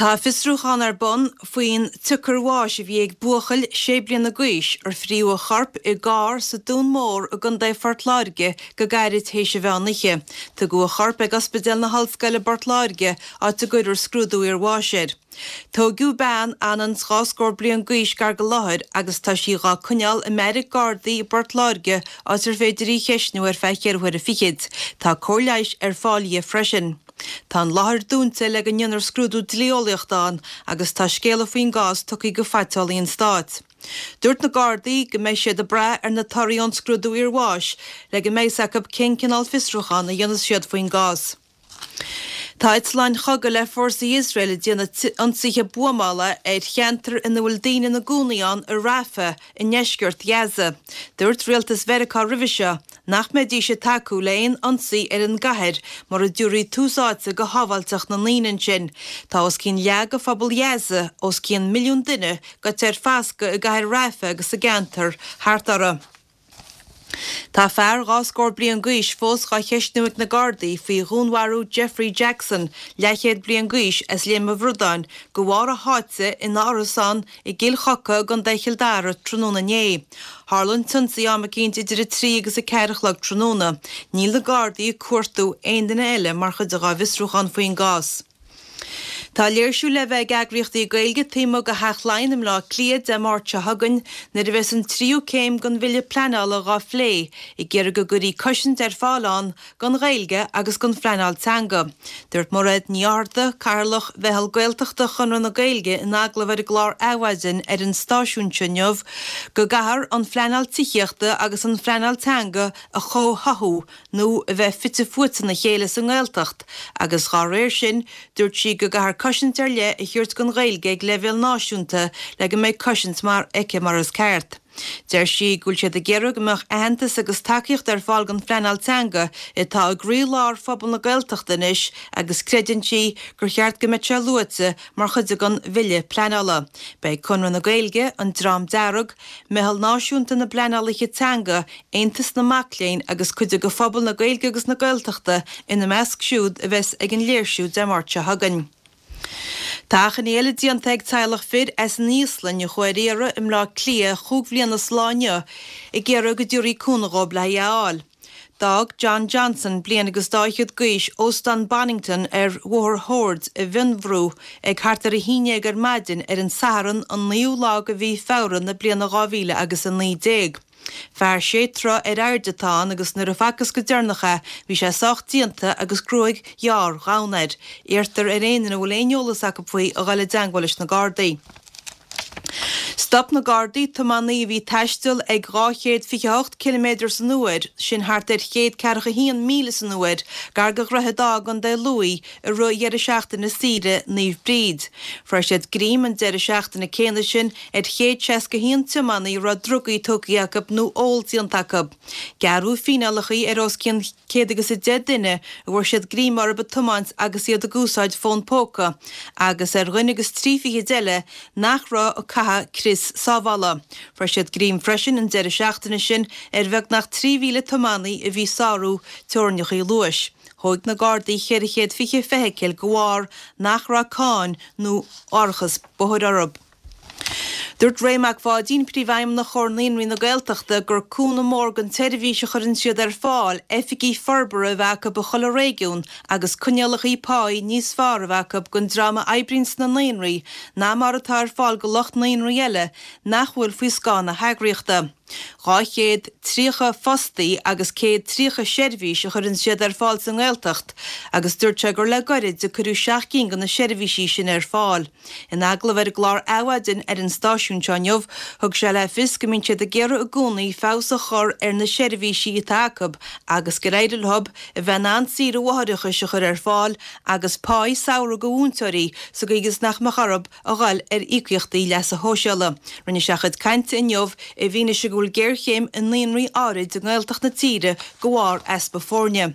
Tá fiosrúchán ar bun faoin tsiocair bháis a bhí ag buachaill sé bliana d'aois ar fríodh a chorp i gcarr sa Dún Mór i gContae Phort Láirge go gairid théis an mheán oíche. Tugadh a chorp ag Ospidéal na hOllscoile i bPort Láirge, áit a gcuirfear scrúdú iarbháis air. Tóigeadh bean anonn 's scór bliain d'aois gar go láthair agus tá sí dhá coinneáil i mbeairic Gardaí i bPort Láirge áit ar féidir í a cheistniú ar feadh cheithre huaire fichid. Tá cóir leighis ar fáil dhi freisin. Tá an láthair dúnta le go ndéanfar scrúdú dlí-eolaíochta ann agus tá scéala faoin gcás tugtha go Phaiteolaí an Stáit. Dúirt na Gardaí go mbeidh siad ag brath ar na torthaí ón scrúdú iarbháis le go mbeidh 's acu cén cineál fiosrúchán a dhéanfas siad faoin gcás. Tá eitleáin chogaidh le fórsaí Iosrael ag déanamh ionsaithe buamála ar cheantar ina bhfuil daoine ina gcónaí ann i Rafah i ndeisceart Ghaza. Dúirt rialtas Mheiriceá roimhe seo nach mbeidís ag tacú le haon ionsaí ar an gcathair mura dtabharfaí tús áite go shábháilteacht na ndaoine ansin. Tá os cionn leath de phobal Ghaza, os cionn milliún duine, gaite ar foscadh i gcathair Rafah agus sa gceantar thart uirthi. Tá fear dhá scór bliain d'aois fós dhá cheistniú ag na Gardaí faoi dhúnmharú Jeffrey Jackson, leathchéad bliain d'aois, as Léim an Bhradáin, de bharr a sháite ina árasán i gCill Choca i gContae Chill Dara tráthnóna inné. Tharla an t-ionsaí am eicínt idir 3 agus 4 a chlog tráthnóna. Níl na Gardaí ag cuartú aon duine eile mar chuid dhá bhfiosrúchán faoin gcás. Tá léirsiú le bheith ag eagraíochtaí Gaeilge taobh amuigh de Theach Laighean i mBleá Cliath Dé Máirt seo chugainn nuair a bheas an tríú céim den bhille pleanála dhá phlé, ag iarraidh go gcuirfí cosaint ar fáil ann don Ghaeilge agus don phleanáil teanga. Dúirt Mairéad Ní Fhátharta, Cathaoirleach Mheitheal Gaeltachta Chonradh na Gaeilge in agallamh ar an gclár Adhmhaidin ar an stáisiún seo inniu go gcaithfear an phleanáil tithíochta agus an phleanáil teanga a chomhtháthú nó a bheith fite fuaite ina chéile sa nGaeltacht agus dhá réir sin dúirt sí go gcaithfear cosaint ar leith a thabhairt don Ghaeilge ag leibhéal náisiúnta le go mbeidh cosaint mar aici mar is ceart. Deir sí go bhfuil siad ag iarraidh go mbeadh aitheantas agus tacaíocht ar fáil don phleanáil teanga atá i gcroí-lár phobal na Gaeltachta anois agus creideann sí gur cheart go mbeadh sé luaite mar chuid den bhille pleanála. Beidh Conradh na Gaeilge, An Dream Dearg, Meitheal Náisiúnta na bPleanálaithe Teanga, Aontas na Mac Léinn agus cuid de phobal na Gaeilge agus na Gaeltachta ina measc siúd a bheas ag an léirsiú Dé Máirt seo chugainn. Tá achainí eile déanta ag teaghlach fir as an Íoslainn a chuaigh ar iarraidh i mBleá Cliath chúig bhliana is lá inniu ag iarraidh go dtabharfaí cúnamh dhóibh le í a fháil. D'fhág John Johnson, bliain agus dá fhichead d'aois, Óstán Bonnington ar Bhóthar Shoird i bhFionnbhrú ag thart ar 11 ar maidin ar an Satharn an 9ú lá de mhí Feabhra na bliana 2019. Fear sé troigh ar airde atá ann agus nuair a facthas go deireanach é bhí sé sách déanta agus gruaig ghearr dhonn air. Iarrtar ar aon duine a bhfuil aon eolas acu faoi a dhul i dteangmháil leis na Gardaí. Stop na Gardaí tiománaí a bhí ag taisteal ag 228 ciliméadar san uair, sin thart ar 141 míle san uair, gar do Dhroichead Átha i gContae Lú i rith dheireadh seachtaine saoire Naomh Bríd. Fuair siad greim an deireadh seachtaine céanna sin ar 161 tiománaí a raibh drugaí tógtha acu nó ól déanta acu. Gearradh fíneálacha ar os cionn 110 duine a bhfuair siad greim orthu ag tiomáint agus iad ag úsáid fón póca agus ar dhuine agus trí fichid eile nach raibh ag caitheamh crios sábhála. Fuair siad greim freisin an deireadh seachtaine sin ar bheagnach 3,000 tiománaí a bhí ag sárú teorainneacha luais. Thóig na Gardaí 420 feithicil de bharr nach raibh cáin nó árachas bóthair orthu. Dúirt Ray Mac Pháidín, Príomhfheidhmeannach Chomhar Naíonraí na Gaeltachta, gur cúnamh mór don tseirbhís a chuireann siad ar fáil oifigí forbartha a bheith acu i chuile réigiún agus coinníollacha páí níos fearr a bheith acu don dream a oibríonn sna naíonraí ná mar atá ar fáil do lucht naíonraí eile nach bhfuil faoi scáth na heagraíochta. 230 fostaí agus 130 seirbhís a chuireann siad ar fáil sa nGaeltacht agus dúirt sé gur le goirid a cuireadh seacht gcinn de na seirbhísí sin ar fáil. In agallamh ar an gclár Adhmhaidin ar an stáisiún seo inniu, thug sé le fios go mbíonn siad ag iarraidh i gcónaí feabhas a chur ar na seirbhísí atá acu agus gur éirigh leo a bheith in ann saoire mháithreachais a chur ar fáil agus páí samhraidh do mhúinteoirí sa gcaoi is nach mbeadh orthu a dhul ar íocaíochtaí leasa shóisialaigh. Rinne sé a chuid cainte inniu i bhfianaise go bhfuil géarchéim i naíonraí áirid i nGaeltacht na tíre de bharr easpa foirne.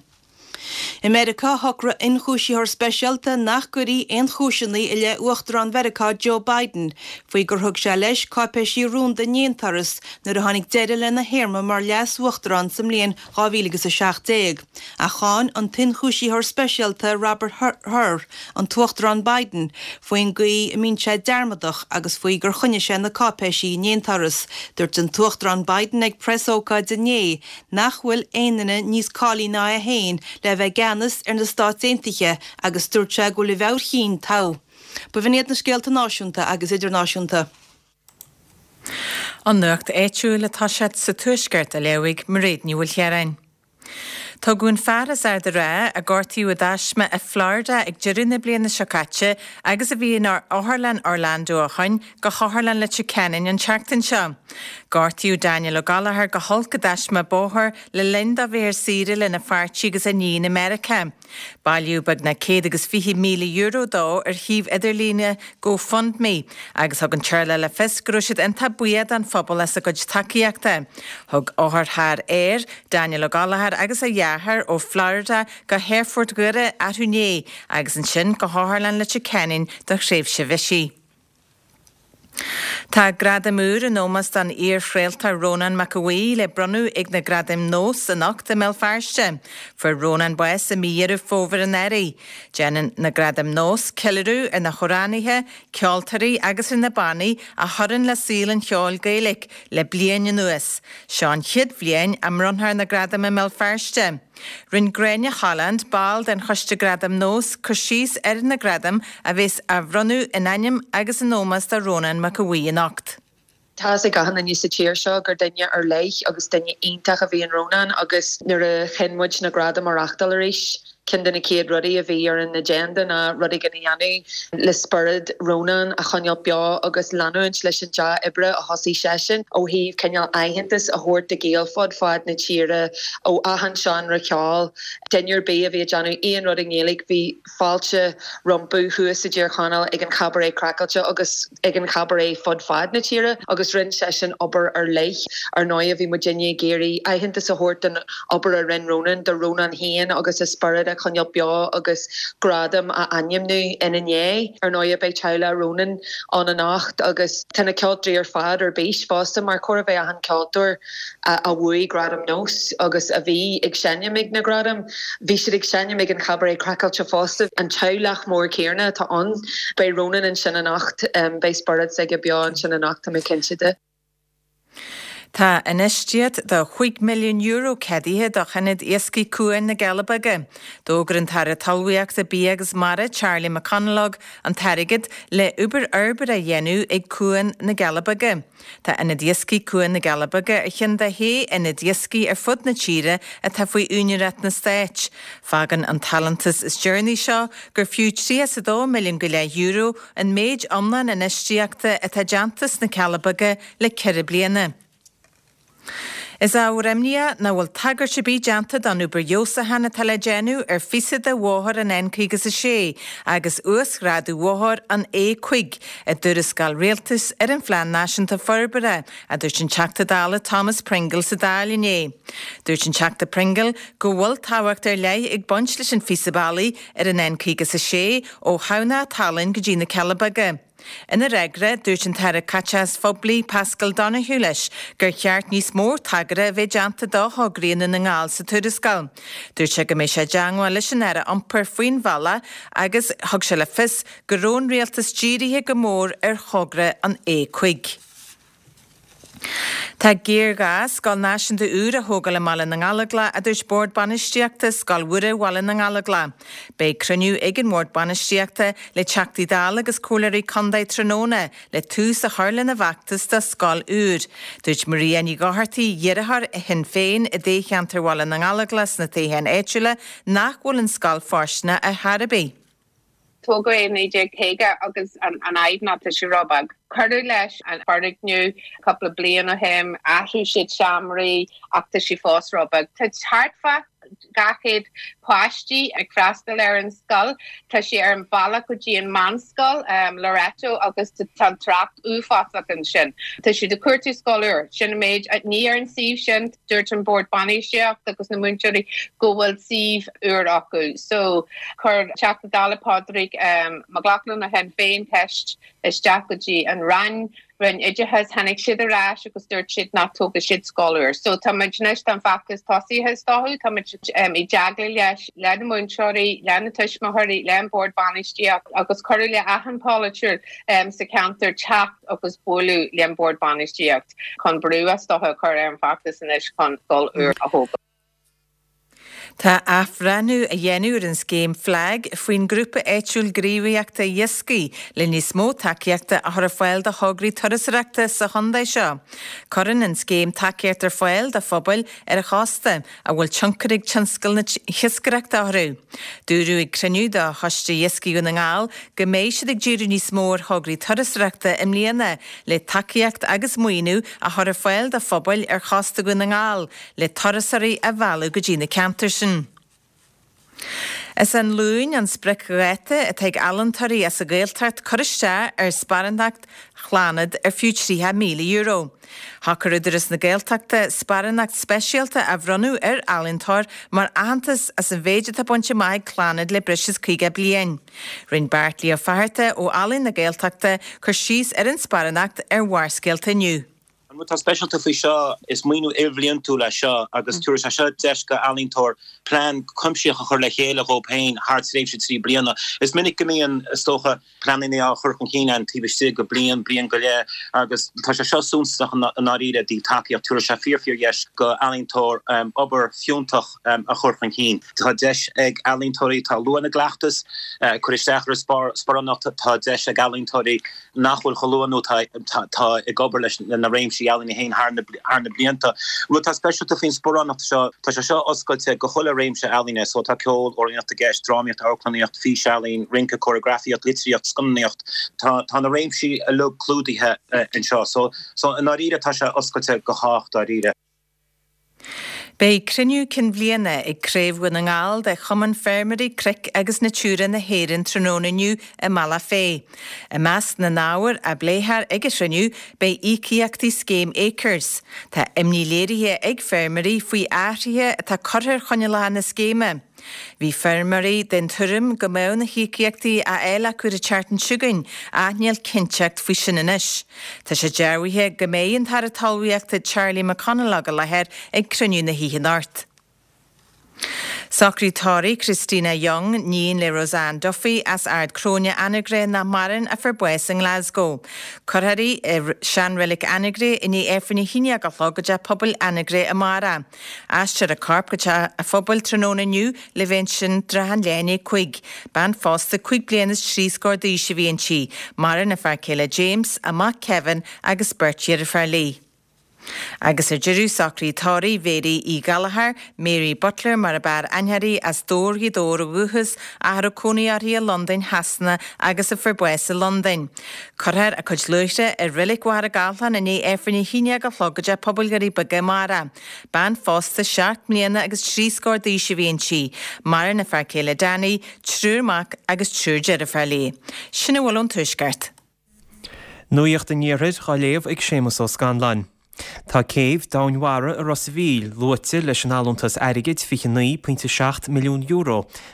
I Meiriceá, shocraigh ionchúisitheoir speisialta nach gcuirfí aon chúiseanna i leith Uachtarán Mheiriceá Joe Biden faoi gur thug sé leis cáipéisí rúnda in aon turas nuair a tháinig deireadh lena théarma mar leas-uachtarán sa mbliain 2017. Ach cháin an t-ionchúisitheoir speisialta Robert Hur an tUachtarán Biden faoin gcaoi a mbíonn sé dearmadach agus faoi gur choinnigh sé na cáipéisí in aon turas. Dúirt an tUachtarán Biden ag preasócáid inné nach bhfuil aon duine níos cáilithe ná é féin le bheith i gceannas ar na Stáit Aontaithe agus dúirt sé go bhfuil a mheabhair chinn togha. B'in iad na scéalta náisiúnta agus idirnáisiúnta. An nuacht áitiúil atá sé sa Tuaisceart a léifidh Mairéad Ní Mhaoilchiaráin. Tugadh an fear as Ard an Rátha, a gortaíodh i dtaisme i Florida ag deireadh na bliana seo caite agus a bhí in Otharlann Orlando ó shoin, go hOtharlann Leitir Ceanainn an tseachtain seo. Gortaíodh Daniel Ó Gallchóir go holc i dtaisme bóthair le linn dó bheith ar saoire lena pháirtí agus a iníon i Meiriceá. Bailíodh beagnach €120,000 dó ar shuíomh idirlíne GoFundMe agus thug an teaghlach le fios go raibh siad iontach buíoch don phobal as a gcuid tacaíochta. Thug otharcharr aeir Daniel Ó Gallchóir agus a dheartháir ó Florida go hAerfort Dhoire arú inné agus ansin go hOtharlann Leitir Ceanainn do thréimhse bhisigh. Tá gradam úr in ómós don iar-chraoltóir Rónán Mac Aodha Bhuí le bronnadh ag na Gradaim Nós anocht i mBéal Feirste. Fuair Rónán bás i mí Dheireadh Fómhair anuraidh. Déanann na Gradaim Nós ceiliúradh ar na hamhránaithe, ceoltóirí agus ar na bannaí a chuireann le saol an cheoil Gaeilge le bliain anuas. Seo an chéad bhliain a mbronnfar na gradaim i mBéal Feirste. Rinne Gráinne Holland, ball den Choiste Gradam Nós, cur síos ar na gradaim a bheas á bhronnadh in ainm agus in ómós do Rónán Mac Aodha Bhuí anocht. Tá fhios ag achan duine sa tír seo gur duine ar leith agus duine iontach a bhí in Rónán agus nuair a chinn muid na gradaim a reachtáil arís, ceann de na chéad rudaí a bhí ar an agenda ná rud éigin a dhéanamh le spiorad Rónán a choinneáil beo agus leanúint leis an dea-oibre a thosaigh seisean ó thaobh cineál aitheantas a thabhairt do Ghaeil fud fad na tíre ó achan seánra ceoil. Duine ar bith a bhí ag déanamh aon rud i nGaeilge bhí fáilte rompu thuas i dTír Chonaill ag an Chabaret Craiceáilte agus ag an Chabaret fud fad na tíre agus rinne seisean obair ar leith. Ar ndóigh bhí muidinne ag iarraidh aitheantas a thabhairt don obair a rinne Rónán, do Rónán féin agus a spiorad a choinneáil beo agus gradam a ainmniú ina ndiaidh. Ar ndóigh beidh teaghlach Rónán ann anocht agus tá na ceoltóirí ar fad ar bís fosta mar chóir a bheith achan ceoltóir a bhuaigh Gradam Nós agus a bhí ag seinm ag na Gradaim. Bhí siad ag seinm ag an Chabaret Craiceáilte fosta. An teaghlach mór céanna atá ann. Beidh Rónán ansin anocht. Beidh spiorad s'aige beo ansin anocht, tá mé cinnte de. Tá infheistíocht de €5 milliún ceadaithe do Ionad Iascaigh Cuan na gCealla Beaga. D'fhógair an tAire Talmhaíochta, Bia agus Mara, Charlie McConalogue, an t-airgead le obair fhorbartha a dhéanamh ag Cuan na gCealla Beaga. Tá Ionad Iascaigh Cuan na gCealla Beaga ar cheann de shé ionad iascaigh ar fud na tíre atá faoi úinéireacht na Stáit. Fágann an t-allúntas is deireanaí seo gur fiú €32 milliún go leith euro an méid iomlán infheistíochta atá déanta sna Cealla Beaga le ceithre bliana. Is ábhar imníoch nach bhfuil tagairt ar bith déanta don obair fheabhsúcháin atá le déanamh ar phíosa de bhóthar an N56 agus uasghrádú bhóthar an A5 i dtuarascáil rialtais ar an Phlean Náisiúnta Forbartha, a dúirt an Teachta Dála Thomas Pringle sa Dáil inné. Dúirt an Teachta Pringle go bhfuil tábhacht ar leith ag baint leis an phíosa bealaigh ar an N56 ó Thamhnach Tallann go dtí na Cealla Beaga. Ina fhreagra, dúirt an tAire Caiteachais Phoiblí Paschal Donohoe leis gur cheart níos mó tagartha a bheith déanta do thograí i nDún na nGall sa tuarascáil. Dúirt sé go mbeidh sé i dteangmháil leis an Aire Iompair faoin bhealach agus thug sé le fios go raibh an Rialtas dírithe go mór ar thogra an A5. Tá géarghá scoil náisiúnta úr a thógáil i mBaile na nGallóglach, a dúirt Bord Bainistíochta Scoil Mhuire Bhaile na nGallóglach. Beidh cruinniú ag an mBord Bainistíochta le Teachtaí Dála agus Comhairleoirí Contae tráthnóna le tús a chur lena bhfeachtas do scoil úr. Dúirt Maria Ní Dhochartaigh, iarrthóir Shinn Féin i dtoghcheantar Bhaile na nGallóglach sna toghcháin áitiúla, nach bhfuil an scoil fóirsteanach ar chor ar bith. Tógadh é i 1950 agus an fhadhb ná tá sé róbheag. Cuireadh leis an foirgneamh cúpla bliain ó shin, athraigh siad seomraí ach tá sé fós róbheag. Tá thart fá. 200 páistí ag freastal ar an scoil. Tá sé ar an bhealach go dtí an meánscoil, Loreto, agus tá an trácht uafásach ansin. Tá siad ag cuartú scoil úr. Sin an méid. Ní ar an suíomh sin, dúirt an bord bainistíocht agus na múinteoirí go bhfuil suíomh úr acu. So, chuir Teachta Dála Pádraig Mac Lochlainn ó Shinn Féin ceist isteach go dtí an Roinn, Roinn Oideachais, tháinig siad ar ais agus dúirt siad nach dtógfaidh siad scoil úr. So tá muid anois, tá an feachtas tosaithe is dócha, tá muid i dteagmháil leis, le na múinteoirí, le na tuismitheoirí, le an bord bainistíocht agus cuireadh le achan polaiteoir sa cheantar teacht agus bualadh le an bord bainistíocht chun brú is dócha a chur ar an bhfeachtas anois chun scoil úr a thógáil. Tá athbhreithniú á dhéanamh ar an scéim FLAG faoin Grúpa Áitiúil Gníomhaíochta Iascaigh le níos mó tacaíochta a chur ar fáil do thograí turasóireachta sa chontae seo. Cuireann an scéim tacaíocht ar fáil do phobail ar an chósta a bhfuil tionchar ag tionscal na hiascaireachta orthu. Dúradh ag cruinniú de Choiste Iascaigh Dhún na nGall go mbeidh siad ag díriú níos mó ar thograí turasóireachta i mbliana le tacaíocht agus maoiniú a chur ar fáil do phobail ar chósta Dhún na nGall le turasóirí a mhealladh go dtí na ceantair sin. Is an Luan an spriocdháta atá ag ealaíontóirí as an Ghaeltacht cur isteach ar sparántacht Chlannad ar fiú €30,000. Shocair Údarás na Gaeltachta sparánacht speisialta a bhronnadh ar ealaíontóir mar aitheantas as an mhéid atá bainte amach ag Clannad le breis is 50 bliain. Rinne Beairtlí Ó Fatharta ó Ealaín na Gaeltachta cur síos ar an sparánacht ar Bharrscéalta inniu. An rud atá speisialta faoi seo, is maoiniú ilbhliantúil é seo agus tabharfaidh sé seo deis go ealaíontóir plean cuimsitheach a chur le chéile dhóibh féin thar tréimhse 3 bliana. Is minic go mbíonn, is dócha, pleananna á chur chun cinn againn taobh istigh de bliain, bliain go leith agus tá sé seo suntasach i ndáiríre i dtaobh tacaíocht. Tabharfaidh sé fíor fíor dheis go ealaíontóir obair fiúntach a chur chun cinn. Tá deis ag ealaíontóirí atá luath ina gcleachtas cur isteach ar an sparánacht, tá deis ag ealaíontóirí nach bhfuil chomh luath nó atá ag obair leis na réimsí ealaíne féin thar na blianta. Rud atá speisialta faoin sparánacht seo, tá sé seo oscailte go chuile réimse ealaíne, so tá ceol, amhránaíocht i gceist, drámaíocht, amharclannaíocht, físealaín, rince, cóireagrafaíocht, litríocht, scannánaíocht, tá tá na réimsí uilig clúdaithe anseo. So so i ndáiríre tá sé oscailte go chách dáiríre. Beidh cruinniú cinn bhliana ag Craobh Dhún na nGall de Chumann Feirmeoirí Cnoic agus Natura na hÉireann tráthnóna inniu i mBealach Féich. I measc na n-ábhar a bpléifear ag an chruinniú beidh íocaíochtaí scéim Acres. Tá imní léirithe ag feirmeoirí faoi athruithe atá curtha ar choinníollacha na scéime. Bhí feirmeoirí den tuairim go mbeadh na híocaíochtaí á fháil acu an tseachtain seo chugainn ach níl cinnteacht faoi sin anois. Tá sé dearbhaithe go mbeidh an tAire Talmhaíochta Charlie McConalogue i láthair ag cruinniú na hoíche anocht. Socraid tórraimh Christina Young, níon le Roseanne Duffy as Ard Cróine, Anagaire nach maireann, a fuair bás i nGlasgow. Cuirfear í i seanreilig Anagaire i ndiaidh Aifreann a haon déag a chlog i dTeach Pobail Anagaire amárach. Aistreofar a corp go teach a phobail tráthnóna inniu le bheith ansin trátha an leath i ndiaidh 5. Bean phósta 5 bliana is 3 scór d'aois a bhí inti. Maireann a fear céile James, a mac Kevin agus beirt dheirféar léi. Agus ar deireadh, socraid tórraimh Mhéirí Uí Ghallchóir, Mary Butler mar ab fhearr aithne uirthi, as Dobhar Ghaoth Dobhair ó dhúchas, ach a raibh cónaí uirthi i Londain Shasana agus a fuair bás i Londain. Cuirfear a cuid luaithre i Reilig Mhachaire Gathlán i ndiaidh Aifreann a haon déag a chlog i dTeach Pobail Dhoirí Beaga amárach. Bean phósta 7 mbliana agus 3 scór d'aois a bhí inti. Maireann a fear céile Danny, triúr mac agus triúr deirféar léi. Sin a bhfuil ón Tuaisceart. Nuacht an Iarthair á léamh ag Séamus Ó Scanláin. Tá céibh domhainmhara i Ros a' Mhíl luaite leis an allúntas airgid €29.7 milliún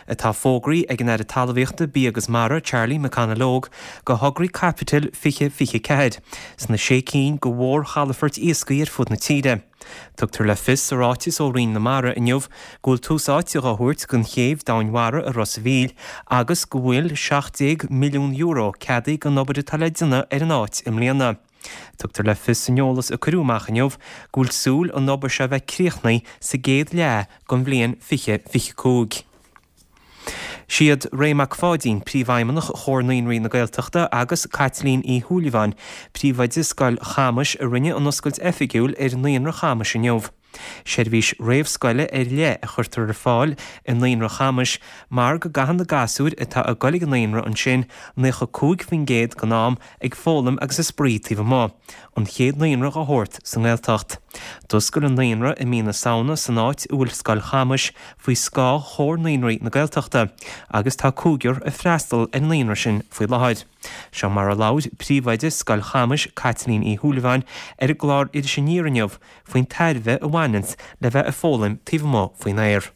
atá fógraithe ag an Aire Talmhaíochta, Bia agus Mara, Charlie McConalogue, do thograí caipitil 2024 sna sé cinn de mhórchalafoirt iascaigh ar fud na tíre. Tugtar le fios sa ráiteas ó Roinn na Mara inniu go bhfuil tús áite dhá thabhairt don chéibh domhainmhara i Ros a' Mhíl agus go bhfuil €17 milliún ceadaithe don obair atá le déanamh ar an áit i mbliana. Tugtar le fios san eolas a cuireadh amach inniu go bhfuil súil an obair seo a bheith críochnaithe sa gcéad leath den bhliain 2025. Siad Ray Mac Pháidín, Príomhfheidhmeannach Chomhar Naíonraí na Gaeltachta agus Caitlín Uí Shúilleabháin, Príomhoide Scoil Chamais a rinne an oscailt oifigiúil ar Naíonra Chamais inniu. Seirbhís réamhscoile ar leith a chuirtear ar fáil i Naíonra Chamais mar go gcaitheann na gasúir atá ag goil ag an naíonra ansin 95% den am ag foghlaim agus ag spraoi taobh amuigh, an chéad naíonra dá shórt sa nGaeltacht. D'oscail an naíonra i mí na Samhna san áit a bhfuil Scoil Chamais faoi scáth Chomhar Naíonraí na Gaeltachta agus tá cúigear ag freastal ar an naíonra sin faoi láthair. Seo mar a labhair príomhoide Scoil Chamais, Caitlín Uí Shúilleabháin, ar an gclár Iris Aniar inniu faoin tairbhe a bhaineanns le bheith ag foghlaim taobh amuigh faoin aer.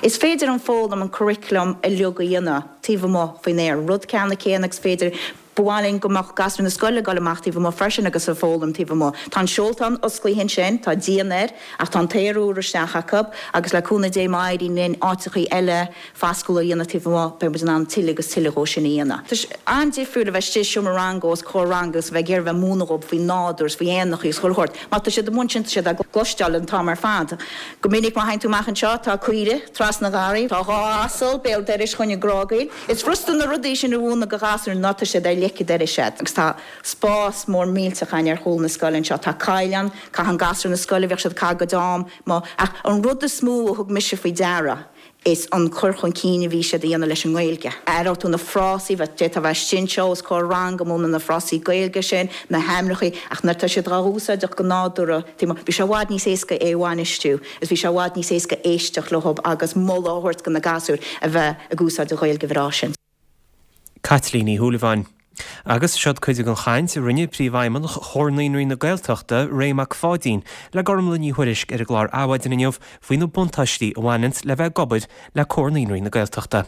Is féidir an foghlaim, an curriculum uilig a dhéanamh taobh amuigh faoin aer, rud ceanna céanna agus féidir, ba mhaith linn go mbeadh gasúir na scoile ag dul amach taobh amuigh freisin agus ag foghlaim taobh amuigh. Tá an seoltán osclaithe ansin, tá díon air ach tá an t-aer úr isteach acu agus le cúnamh Dé má éiríonn linn áiteachaí eile fascúla a dhéanamh taobh amuigh, beidh muid in ann tuilleadh agus tuilleadh dhó sin a dhéanamh. Tá sé an-difriúil a bheith istigh i seomra ranga os comhair ranga agus a bheith ag iarraidh a bheith ag múineadh dhóibh faoin nádúr is faoi éanachaí agus chuile shórt. Má tá siad amuigh ansin tá siad á gcloisteáil an t-am ar fad. Go minic má théann tú amach anseo tá caoire trasna an gharraí, tá 2 asal béal dorais chugainn ag grágaíl. Is furasta na rudaí sin a mhúineadh do ghasúir ná tá siad ar leic an dorais agat. Agus tá spás mór millteach againn ar chúl na scoile anseo. Tá coill ann, caitheann gasúir na scoile, bhíodh siad ag caitheamh a gcuid am amuigh. Ach an rud is mó a thug mise faoi deara, is an cur chun cinn a bhí siad a dhéanamh leis an nGaeilge. Aireoidh tú na frásaí, d'fhéadfá a bheith istigh anseo os comhair ranga ag múineadh na frásaí Gaeilge sin, na hainmneachaí, ach nuair atá siad dhá úsáideach go nádúrtha, bhí sé i bhfad níos éasca é a bhainistiú is bhí sé i bhfad níos éasca éisteacht leo agus moladh a thabhairt do na gasúir a bheith ag úsáid an Ghaeilge bhreá sin. Caitlín Ní Shúilleabháin. Agus seod cuid den chaint a rinne Príomhfheidhmeannach Chomhar Naíonraí na Gaeltachta, Ray Mac Pháidín, le Gormlaith Ní Thuairisg ar an gclár Adhmhaidin inniu faoi na buntáistí a bhaineanns le bheith ag obair le Comhar Naíonraí na Gaeltachta.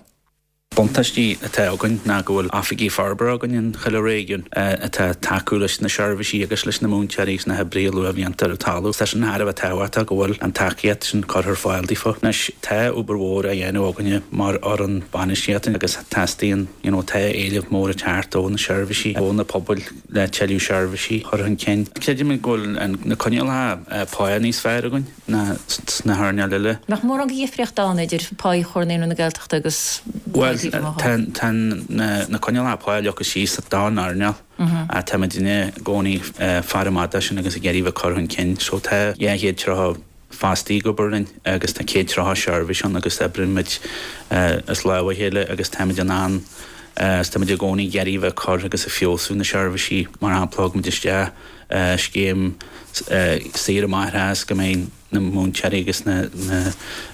Buntáistí atá againn ná go bhfuil oifigigh forbartha againn in chuile réigiún atá ag tacú leis na seirbhísí agus leis na múinteoirí agus na hoibrithe luathbhlianta ar an talamh. Tá sin thar a bheith tábhachtach go bhfuil an tacaíocht sin curtha ar fáil daofa. Anois, tá obair mhór á dhéanamh againne mar fhoireann bainistíochta agus teastaíonn, you know, tá éileamh mór ag teacht ó na seirbhísí, ó na pobail le tuilleadh seirbhísí a chur chun cinn. Creidimid go bhfuil na coinníollacha pá níos fearr againn ná sna hearnáil eile. Nach mórán de dhifríocht ann idir pá Chomhar Naíonraí na Gaeltachta agus pá taobh amuigh? Bhuel, tá na coinníollacha pá leagtha síos don earnáil. Táimidne i gcónaí ag faire amach dó sin agus ag iarraidh bheith ag cur chun cinn. So tá 230 fostaí ag obair linn agus tá 130 seirbhís ann agus oibrímid as lámh a chéile agus táimid in ann is táimid i gcónaí ag iarraidh bheith ag cur agus ag feabhsú na seirbhísí. Mar shampla, thug muid isteach scéim saoire máithreachais go mbeidh na múinteoirí agus na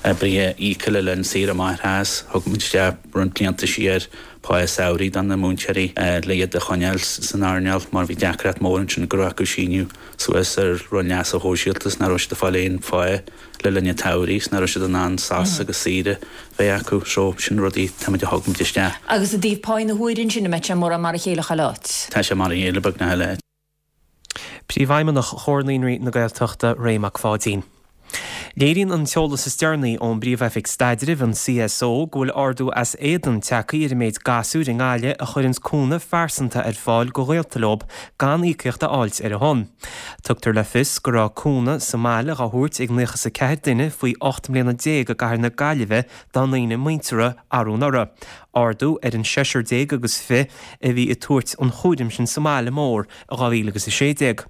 hoibrithe íoctha le linn saoire máithreachais. Thug muid isteach roinnt blianta siar pá samhraidh do na múinteoirí le iad a choinneáil san earnáil mar bhí deacracht mór ansin go raibh acu síniú suas ar Roinn Leasa Shóisialta is nach raibh siad ag fáil aon phá le linn an tsamhraidh is nach raibh siad in ann sos agus saoire bheith acu. So, sin rudaí táimid a thug muid isteach. Agus i dtaobh pá na huaire ansin, an mbeidh sé mórán mar a chéile chuile áit? Tá sé mar a chéile beagnach chuile áit. Príomhfheidhmeannach Chomhar Naíonraí na Gaeltachta, Ray Mac Pháidín. Léiríonn an t-eolas is deireanaí ón bPríomh-Oifig Staidrimh, an CSO, go bhfuil ardú as éadan tagtha ar an méid gasúir i nGaillimh a chuireanns cúnamh phearsanta ar fáil go ghaolta leob gan íocaíocht a fháilt ar a shon. Tugtar le fios go raibh cúnamh sa mbaile dhá thabhairt ag 94 duine faoi 18 mbliana i gcathair na Gaillimhe dá ndaoine muinteartha arú anuraidh, ardú ar an seisear déag agus fi a bhí ag tabhairt an chúraim sin sa mbaile mór i 2016.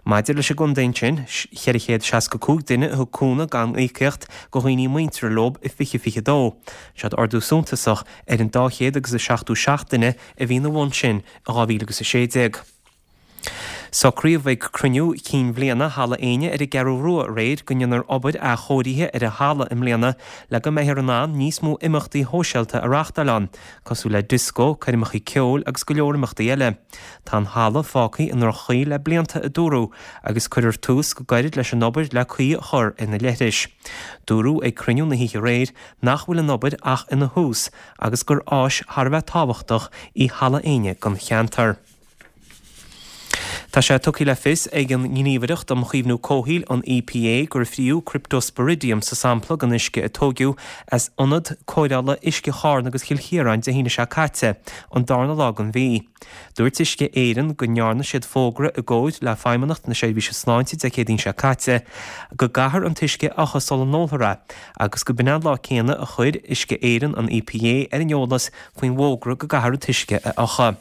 Maidir leis an gcontae ansin, 465 duine a thug cúnamh gan íocaíocht go dhaoine muinteartha leob i 2022. Seod ardú suntasach ar an 200 agus 77 duine a bhí ina bhun sin i 2016. Socraíodh ag cruinniú cinn bhliana Halla Éinne ar an gCeathrú Rua aréir go ndéanfar obair athchóirithe ar an halla i mbliana le go mbeifear in ann níos mó imeachtaí shóisialta a reáchtáil ann, cosúil le dioscó, coirmeacha ceoil agus go leor imeachtaí eile. Tá an halla fágtha i ndroch-chaoi le blianta, a dúradh, agus cuirfear tús go gairid leis an obair le caoi a chur ar na leithris. Dúradh ag cruinniú na hoíche aréir nach bhfuil an obair ach ina thús agus gur áis thar a bheith tábhachtach í Halla Éinne don cheantar. Tá sé tugtha le fios ag an nGníomhaireacht um Chaomhnú Comhshaoil, an EPA, gur fríodh Cryptosporidium sa sampla den uisce a tóigeadh as ionad cóireála uisce Charna agus Chill Chiaráin Dé haoine seo caite, an darna lá den mhí. Dúirt Uisce Éireann go ndearna siad fógra i gcomhair le Feidhmeannacht na Seirbhíse Sláinte Dé Céadaoin seo caite go gcaithfear an t-uisce a fhiuchadh sula n-ólfar é agus go b'in an lá céanna a chuir Uisce Éireann an EPA ar an eolas faoin bhfógra go gcaithfear an t-uisce a fhiuchadh.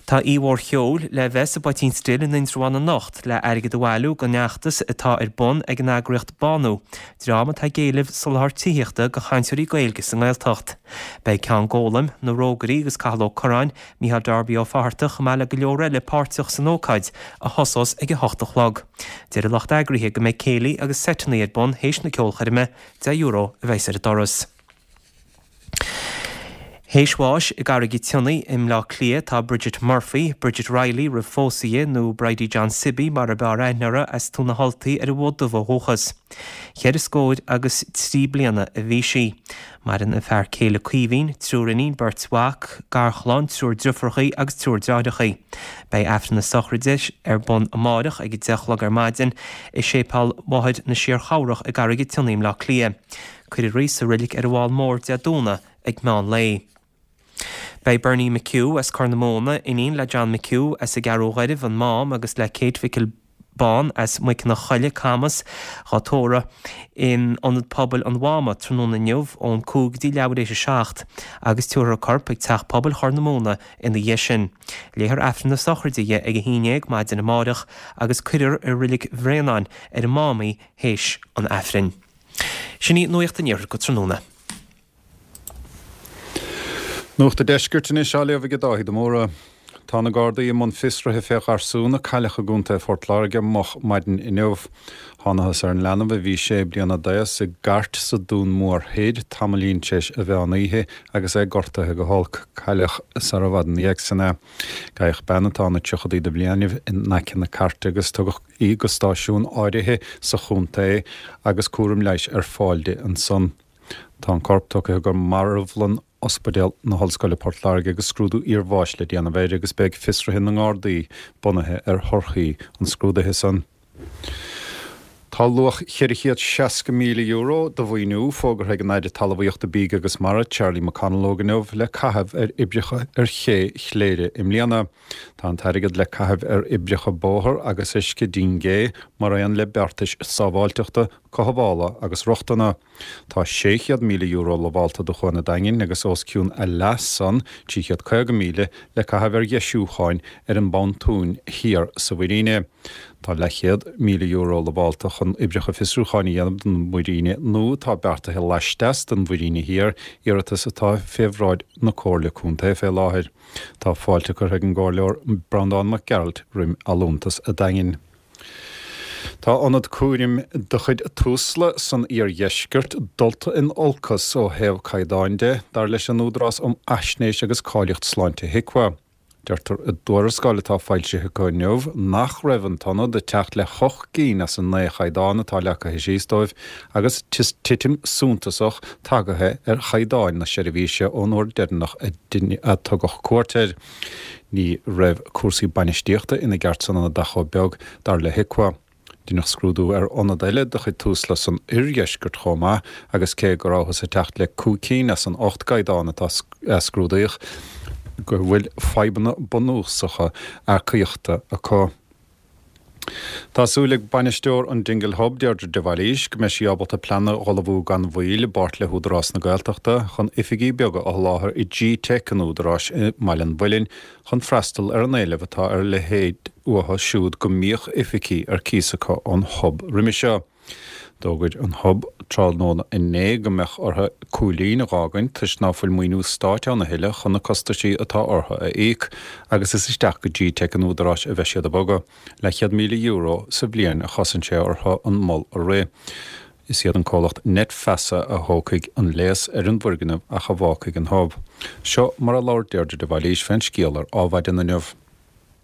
Tá oíche mhór cheoil le bheith sa bPoitín Stil in Indreabhán anocht le airgead a bhailiú don fheachtas atá ar bun ag an eagraíocht Bánú, dream atá ag éileamh soláthar tithíochta do chainteoirí Gaeilge sa nGaeltacht. Beidh Ceann Gólaim, Na Rógairí agus Cathal Ó Curráin, Mícheál Darby Ó Fatharta chomh maith le go leor eile páirteach san ócáid a thosós ag a hocht a chlog. Deir an lucht eagraithe go mbeidh céilí agus seiteanna ar bun théis na ceolchoirme, €10 a bheas ar an doras. Théis bháis i gCarraig an tSionnaigh i mBleá Cliath tá Bridget Murphy, Bridget Reilly roimh phósadh di, nó Bridie John Sibby mar ab fhearr aithne uirthi, as Tóin na hUltaí ar an bhFód Dubh ó dhúchas. Cheithre scóir agus 3 bliana a bhí sí. Maireann a fear céile Caoimhín, triúr iníon, beirt mhac, garchlann, triúr driofúrachaí agus triúr deartháireachaí. Beidh Aifreann na sochraide ar bun amáireach ag 10 a chlog ar maidin i Séipéal Mháthair na Síor-Chabhrach i gCarraig an tSionnaigh i mBleá Cliath. Cuirfear í sa roilig ar an bhFál Mór Dé Domhnaigh ag meán lae. Beidh Bernie McHugh as Corr na Móna, iníon le John McHugh as an gCeathrú Ghairbh, An Mám, agus le Kate Mhicil Bán as Muiceanna Choille, Camas, dhá tórramh in Ionad Pobail an Mháma tráthnóna inniu ón 5 go dtí leathuair éis 7 agus tabharfar a corp ag Teach Pobail Chorr na Móna ina dhiaidh sin. Léifear Aifreann na sochraide dhi ag 11 maidin amáireach agus cuirfear i Roilig Bhréanainn ar an Mám í théis an Aifrinn. Sin í Nuacht an Iarthair go tráthnóna. Nuacht an Deiscirt anois á léamh ag Dáithí de Mórdha. Tá na Gardaí i mbun fiosraithe fé gharsún a cailleadh i gContae Phort Láirge moch maidin inniu. Thánathas ar an leanbh a bhí sé bliana d'aos i gcairt sa Dún Mór Thoir tamaillín tar éis an mheán oíche agus é gortaithe go holc. Cailleadh sara bhfad ina dhiaidh sin é. Gabhadh bean atá ina tríochadaí de bhliainibh in aice na cairte agus tugadh í go stáisiún áirithe sa chontae agus cúram leighis ar fáil di ansan. Tá an corp tugtha go marbhlann Ospidéal na hOllscoile Port Láirge agus scrúdú iarbháis le déanamh air agus beidh fiosruithe na nGardaí bunaithe ar thorthaí an scrúdaithe san. Tá luach €460,000 de mhaoiniú fógartha ag an Aire Talmhaíochta, Bídh agus Mara, Charlie McConalogue inniu le caitheamh ar oibreacha ar ché Chléire i mbliana. Tá an t-airgead le caitheamh ar oibreacha bóthair agus uisce dín gé, mar aon le beartais sábháilteachta, cothabhála agus rochtana. Tá €600,000 lamhálta do Chuan an Daingin agus os cionn a leath san, 350,000, le caitheamh ar dheisiúcháin ar an bpontún thiar sa mhuiríne. Tá leathchéad €1,000 lamhálta chun oibreacha fiosrúcháin a dhéanamh don mhuiríne nua atá beartaithe laisteas den mhuiríne thiar, iarratas atá fé bhráid na Comhairle Contae fé láthair. Tá fáilte curtha ag an gComhairleoir Breandán Mac Gearailt roim allúntas a' Daingin. Tá ionad cúraim de chuid Tusla san iardheisceart dulta in olcas ó thaobh caighdeáin de, dar leis an Údarás um Fhaisnéis agus Cáilíocht Sláinte HIQA. Deirtear i dtuarascáil atá foilsithe acu inniu nach raibh an t-ionad ag teacht le hocht gcinn as an naoi chaighdeán atá leagtha síos dóibh agus titim suntasach tagaithe ar chaighdeáin na seirbhíse ón uair deireanach a tugadh cuairt air. Ní raibh cúrsaí bainistíochta ina gceart san ionad ach chomh beag, dar le HIQA. Deineadh scrúdú ar ionad eile de chuid Tusla san oirdheisceart chomh maith agus cé go rabhthas ag teacht le cúig cinn as an ocht gcaighdeán atá a scrúdaíodh, go bhfuil fadhbanna bunúsacha earcaíochta acu. Tá súil ag bainisteoir an Dingle Hub, Deirdre de Bhailís, go mbeidh sí ábalta plean a dh'ullmhú gan mhoill i bpáirt le hÚdarás na Gaeltachta chun oifigí beaga a sholáthar i G-Teic an Údaráis i mBaile an Mhuilinn chun freastal ar an éileamh atá ar a leithéid uathu siúd go mbíodh oifigí ar cíos acu ón Hub roimhe seo. D'fhógair an Hub tráthnóna inné go mbeadh orthu Cúilín a dh'fhágaint toisc ná fuil maoiniú stáit ann a thuilleadh chun na costaisí atá orthu a íoc agus is isteach go G-Teic an Údaráis a bheidh siad ag bogadh. Leathchéad €1,000 sa bhliain a chosain sé orthu an mol a rith. Is iad an comhlacht Net Feasa a thógfaidh an léas ar an bhfoirgneamh ach a bhfágfaidh an Hub. Seo mar a labhair Deirdre de Bhailís fén scéal ar Ádhmhaidin inniu.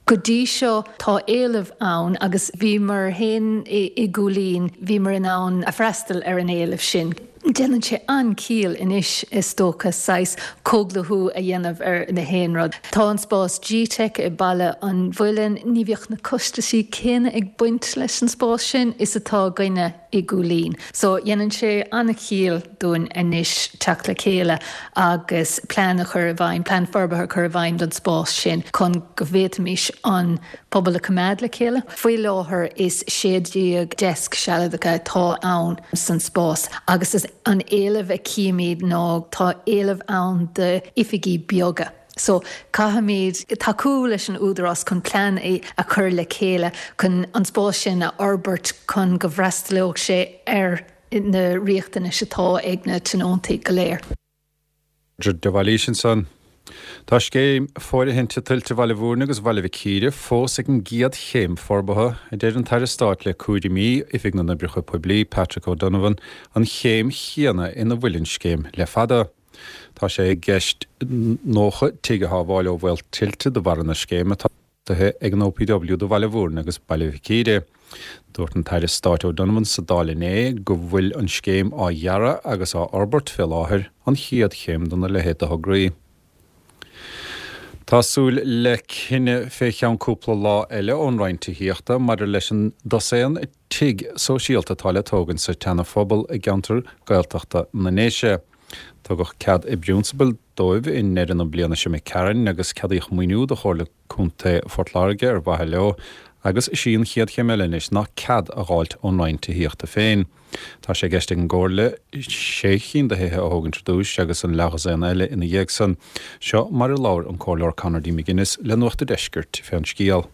Go dtí seo tá éileamh ann agus bhíomar féin i gCúilín, bhíomar in ann a freastal ar an éileamh sin. Déanann sé an-chiall anois is dócha saghas comhdhlúthú a dhéanamh ar na haon rud. Tá an spás G-Teic i Baile an Mhuilinn, ní bheadh na costaisí céanna ag baint leis an spás sin is atá againne i gCúilín. So dhéanann sé an-chiall dúinn anois teacht le chéile agus plean a chur i bhfeidhm, plean forbartha a chur i bhfeidhm don spás sin chun go bhféadfaimis an pobal a choimeád le chéile. Faoi láthair is 16 deasc sealadacha atá ann san spás agus is an éileamh a chímid ná tá éileamh ann d'oifigí beaga. So caithfimid tacú leis an Údarás chun plean a chur le chéile chun an spás sin a fhorbairt chun go bhfreastalódh sé ar na riachtanais atá ag na tionóntaí go léir. Deirdre de Bhailís ansan. Tá scéim fóirithinte tuilte Bhaile Bhúirne agus Bhaile Mhic Íre fós ag an gcéad chéim forbartha, a deir an tAire Stáit le cúraimí Oifig na nOibreacha Poiblí, Patrick O'Donovan, an chéim chéanna ina bhfuil an scéim le fada. Tá sé i gceist 90 tigh a shábháil ó bhaol tuilte de bharra na scéime atá beartaithe ag an OPW do Bhaile Bhúirne agus Baile Mhic Íre. Dúirt an tAire Stáit O'Donovan sa Dáil inné go bhfuil an scéim á dhearadh agus á fhorbairt fé láthair, an chéad chéim dona leithéid de thograí. Tá súil le cinneadh fé cheann cúpla lá eile ón Roinn Tithíochta maidir leis an dosaen tigh sóisialta atá le tógaint sa tSeana-Phobal i gceantar Gaeltachta na nDéise. Tugadh cead i bprionsabal dóibh i ndeireadh na bliana seo imigh tharainn agus ceadaíodh maoiniú do Chomhairle Contae Phort Láirge ar mhaithe leo agus is í an chéad chéim eile anois ná cead a dh'fháilt ón Roinn Tithíochta féin. Tá sé i gceist ag an gComhairle sé chinn de thithe a thógaint ar dtúis agus an leathdhosaen eile ina dhiaidh san. Seo mar a labhair an Comhairleoir Conor D. McGuinness le Nuacht a' Deiscirt fén scéal.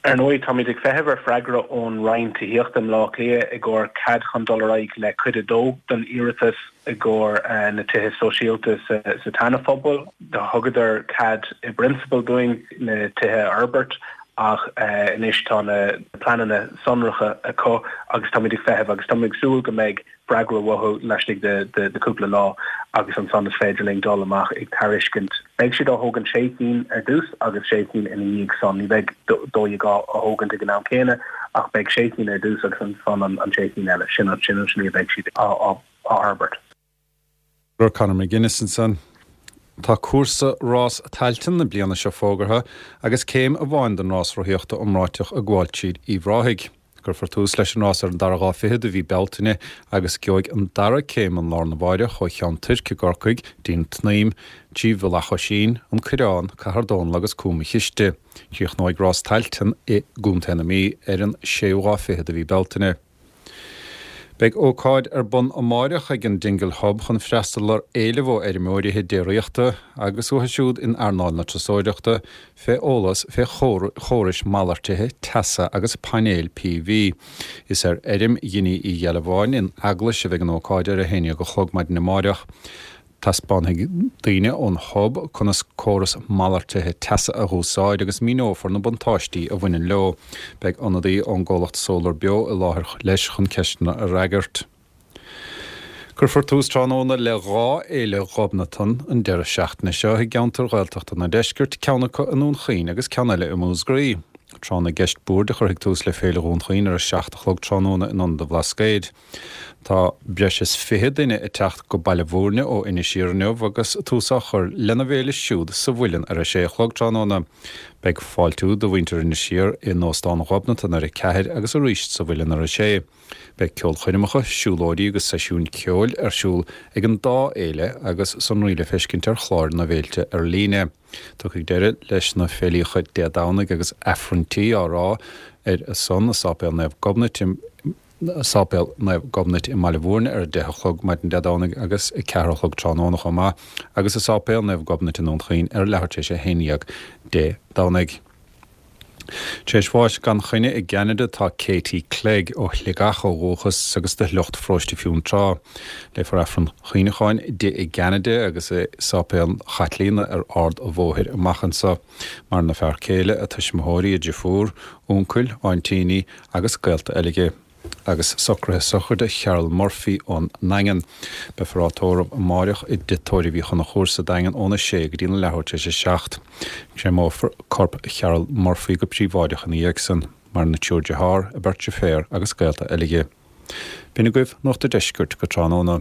Ar ndóigh, táimid ag feitheamh ar freagra ón Roinn Tithíochta i mBleá Cliath i gcomhair cead chun dul ar aghaidh le cuid a dó den iarratas i gcomhair na tithe sóisialta sa tSeana-Phobal. Thugadar cead i bprionsabal dúinn na tithe a fhorbairt ach anois tá na pleananna sonracha acu agus táimid ag feitheamh agus táimid ag súil go mbeidh freagra uathu laistigh de chúpla lá agus ansan is féidir linn dul amach ag tairiscint. Beidh siad á thógaint sé cinn ar dtús agus sé cinn ina dhiaidh san. Ní bheidh 12 á thógaint ag an am céanna ach beidh sé cinn ar dtús agus ansan an sé cinn eile. Sin an slí a bheidh siad á fhorbairt. Conor McGuinness ansan. Tá cúrsa Rás Tailteann na bliana seo fógartha agus céim amháin den rás rothaíochta iomráiteach ag gabháil tríd Uíbh Ráthaigh. Cuirfear tús leis an rás ar an dara lá fichead de mhí Bealtaine agus gheobhaidh an dara céim an lá arna mháireach ó Cheann Toirc i gCorcaigh dtí'n tSnaidhm, trí Mhullach Oisín, An Coireán, Cathair Dónall agus Cúm an Chiste. Críochnóidh Rás Tailteann i gContae na Mí ar an séú lá fichead de mhí Bealtaine. Beidh ócáid ar bun amáireach ag an Dingle Hub chun freastal ar éileamh ó fheirmeoirí déiríochta agus uathu siúd in earnáil na turasóireachta fé eolas fé chórais malartaithe teasa agus painéil PV. Is ar fheirm Dhinny Uí Ghealbháin in Eaglais a bheidh an ócáid ar a haon dhéag a chlog maidin amáireach. Taispeánfaidh daoine ón Hub conas córas malartaithe teasa a dh'úsáid agus míneofar na buntáistí a bhaineann leo. Beidh ionadaí ón gcomhlacht Solar Beo i láthair leis chun ceisteanna a fhreagairt. Cuirfear tús tráthnóna le dhá fhéile Ghobnatan an deireadh seachtaine seo i gceantair Ghaeltachta na Deiscirt, ceann acu i nDún Chaoin agus ceann eile i Múscraí. Tráth na gCeist Boird a chuirfidh tús le Féile Dhún Chaoin ar a 7 a chlog tráthnóna in Ionad an Bhlascaoid. Tá breis is 20 duine ag teacht go Baile Bhúirne ó Inis Oírr inniu agus tús á chur lena bhféile siúd sa Mhuileann ar a sé a chlog tráthnóna. Beidh fáiltiú do mhuintir Inis Oírr in Óstán Ghobnatan ar a ceathair agus arís sa Mhuileann ar a sé. Beidh ceolchoirmeacha, siúlóidí agus seisiúin ceoil ar siúl ag an dá fhéile agus sonraí le feiscint ar chláir na bhféilte ar líne. Tiocfaidh deireadh leis na féilíocha Dé Domhnaigh agus Aifrinntí á rá ar a son i Sáipéal Naomh Gobnait i Sáipéal Naomh Gobnait i mBaile Bhúirne ar 10 a chlog maidin Dé Domhnaigh agus 4 a chlog tráthnóna chomh maith agus i Sáipéal Naomh Gobnait i nDún Chaoin ar leathuair tar éis 11 Dé Domhnaigh. Tar éis bháis gan choinne i gCeanada tá Katie Clegg, ó Shligeach ó dhúchas agus de shliocht Pharóiste Fionntrá. Léifear Aifreann Cuimhneacháin di i gCeanada agus i Sáipéal Chaitlíona ar Ard a' Bhóthair amach anso. Maireann a fear céile, a tuismitheoirí, a driofúr, uncail, aintíní agus gaolta eile di. Agus socruithe sochraide Cheryl Murphy ón nDaingean. Beifear á tórramh amáireach i dTigh Tórraimh Uí Chonchúir sa Daingean óna sé go dtí na leathuair tar éis a 7. Créamófar corp Cheryl Murphy go príobháideach ina dhiaidh san. Maireann a triúr dearthár, a beirt deirféar agus gaolta eile di. B'in agaibh Nuacht a' Deiscirt go tráthnóna.